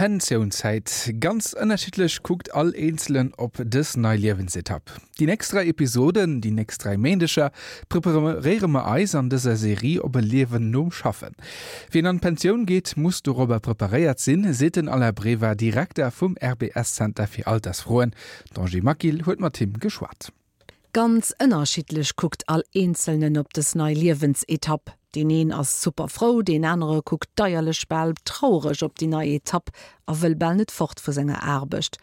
Pensiounszäit. Ganz ënnerschiddlech kuckt all Eenzelen op dës nei Liewensetapp. Déi nächst 3 Episoden, déi nächst 3 Méindeger, preparéiere mer eis an dëser Serie op e Liewen nom Schaffen. Wien an d'Pensioun geet, muss dorobber preparéiert sinn, seet den Alain Brever, Direkter vum RBS-Zenter fir Altersfroen. D'Angie Maquil huet mat him geschwat. Ganz ënnerschiddlech kuckt all Eenzelnen op dës nei Liewensetapp. Deen een ass super frou, deen anere kuckt deierlech, bal trauereg op déi nei Etapp a wëll bal net fort vu senger Aarbecht.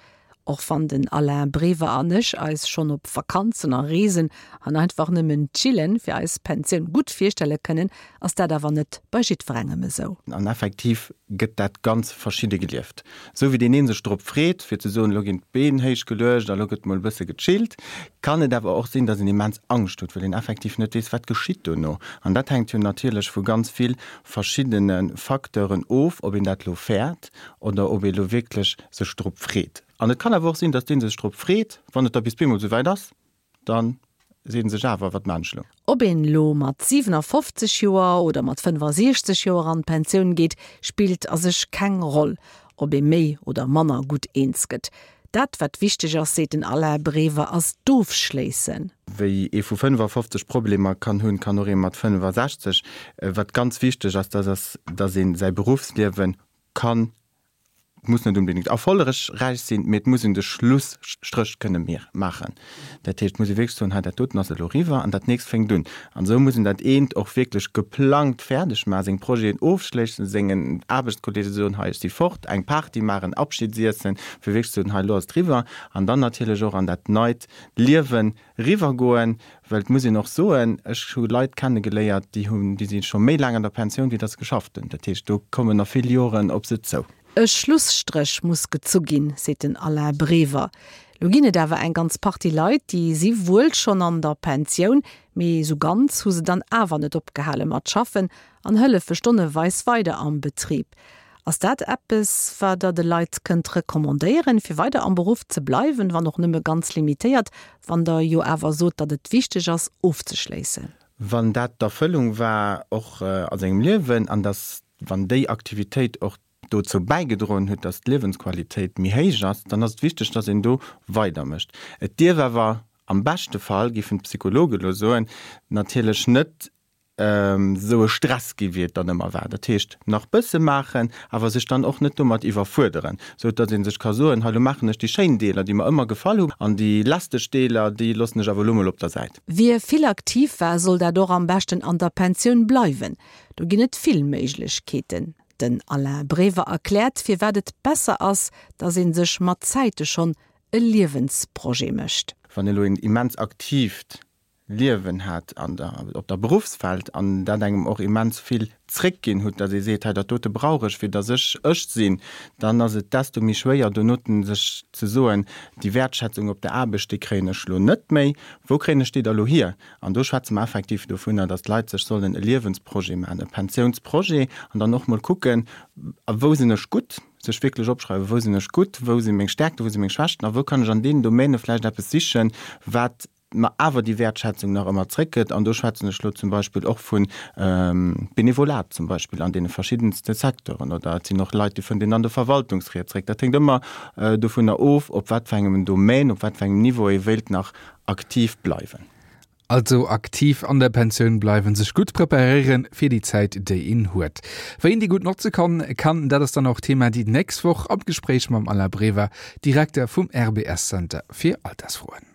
Och wann den Alain Brever an ech eis schonn op Vakanzen a Reesen an einfach nëmmen chillen fir eis Pensioun gutt virstelle kënnen, ass dat awer net bei jiddwerengem esou. An effektiv gëtt dat ganz verschidde gelieft. Esou wéi deen een sech drop freet, fir ze soen, elo ginn d'Been héich geluecht a lo gëtt mol e bësse gechillt, kann et awer och sinn, datt een immens Angscht huet, well een effektiv net weess, wat geschitt dono. An dat hänkt jo natierlech vu ganz vill verschiddene Facteuren of, ob een dat elo fäert oder ob ee lo wierklech sech drop freet. An et kann awer och sinn, datt dee sech drop freet, wann et da bis bemol esou wäit ass, Dann seet en sech awer, Wat maan ech lo? Ob een elo mat 57 Joer oder mat 65 Joer an d'Pensioun geet, spillt a sech keng Roll, ob ee méi oder manner gutt eens gëtt. Dat wat wichteg ass, seet den Alain Brever, ass d'Ofschléissen. Wéi ee vu 55 Problemer kann hunn, kann och ee mat 65. Wat ganz wichteg ass, dat ass, datt ee säi Beruffsliewe kann Et muss net unbedéngt erfollegräich sinn, mee et muss een de Schlusstréch kënne maachen. Dat heescht, et muss ee wierklech soen, hei dat doten ass elo eriwwer an dat nächst fänkt un. An esou muss een dat eent och wierklech geplangt fäerdeg maachen, seng Projeten ofschléissen, sengen Aarbechtskolleege soen, hei ech si fort, eng Party maachen, Abschiedsiessen, fir wierklech ze soen, hei elo ass et eriwwer. An dann natierlech och an dat neit Liewen Eriwwergoen, well et muss een och soen, ech hu Leit kennegeléiert, déi hunn, déi si scho méi laang an der Pensioun, wéi datt se geschafft hunn. Dat heescht, do kommen nach vill Joren op se zou. E Schlusstréch muss gezu ginn, seet den Alain Brever. Lo ginn et awer eng ganz Partie Leit, déi si wuel schonn an der Pensioun, mee esou ganz hu se dann awer net opgehale mat schaffen an hëllefe stonneweis weider am Betrib. Ass dat eppes, wat Der de Leit kënnt recommandéieren, fir weider am Beruff ze bleiwen, wann och nëmme ganz limitéiert, wann Der jo awer sot, datt et wichteg ass, ofzeschléissen? Wann dat d'Erfëllung war och a sengem Liewen an datt, wann déi Aktivitéit och dozou bäigedroen huet, datt d'Liewensqualitéit méi héich ass, dann ass et wichteg, datt een do weidermécht. Et dierf awer am beschte Fall, géifen d'Psychologe elo soen, natierlech net esou e Stress gi wéi et dann ëmmer war. Dat heescht nach bësse maachen, awer sech dann och net domat iwwerfuerderen, sou datt ee sech ka soen, hei lo maachen ech déi schéin Deeler, déi mer ëmmer gefall hunn, an déi lästeg Deeler, déi loossen ech awer elo mol op der Säit. Wie vill aktiv war, soll dat och am beschten an der Pensioun bleiwen. Do ginn et vill Méiglechkeeten. Den Alain Brever erkläert, firwat et besser ass, datt ee sech mat Zäite schonn e Liewensprojet mécht. Wann elo een immens aktiivt Liewen hat an der, op der Beruffswelt an dat engem och immens vill zréckginn hutt, datt ee seet, hei dat dote brauch ech, fir datt ech ech sinn, dann ass et desto méi schwéier donoten sech ze soen, déi Wäertschätzung op der Aarbecht, déi kréien ech elo net méi, wou kréien ech déi da elo hier? An do schwätze mer effektiv dovunner, datt d'Leit sech sollen e Liewensprojet maachen, e Pensiounsprojet an dann och mol kucken, a wou sinn ech gutt, sech wierklech opschreiwen, wou sinn ech gutt, wou si meng Stärkten, wou si meng Schwächten a wou kann ech an deenen Domäne vläicht eppes sichen, wat mer awer déi Wäertschätzung nach ëmmer zréckgëtt, an do schwätzen ech elo zum Beispill och vu Benevolat zum Beispill an deene verschiddenste Secteuren, oder et sinn och Leit, déi fënnt een an de Verwaltungsried zréck. Dat hänkt ëmmer dovunner of, op wat fir engem Domaine, op wat fir engem Niveau ee wéilt nach aktiv bleiwen. Also aktiv an der Pensioun bleiwen, sech gutt preparéieren fir déi Zäit, déi een huet. Wéi een déi gutt notze kann, kann, dat ass dann och Thema déi nächst Woch am Gespréich mam Alain Brever, Direkter vum RBS Center fir Altersfroen.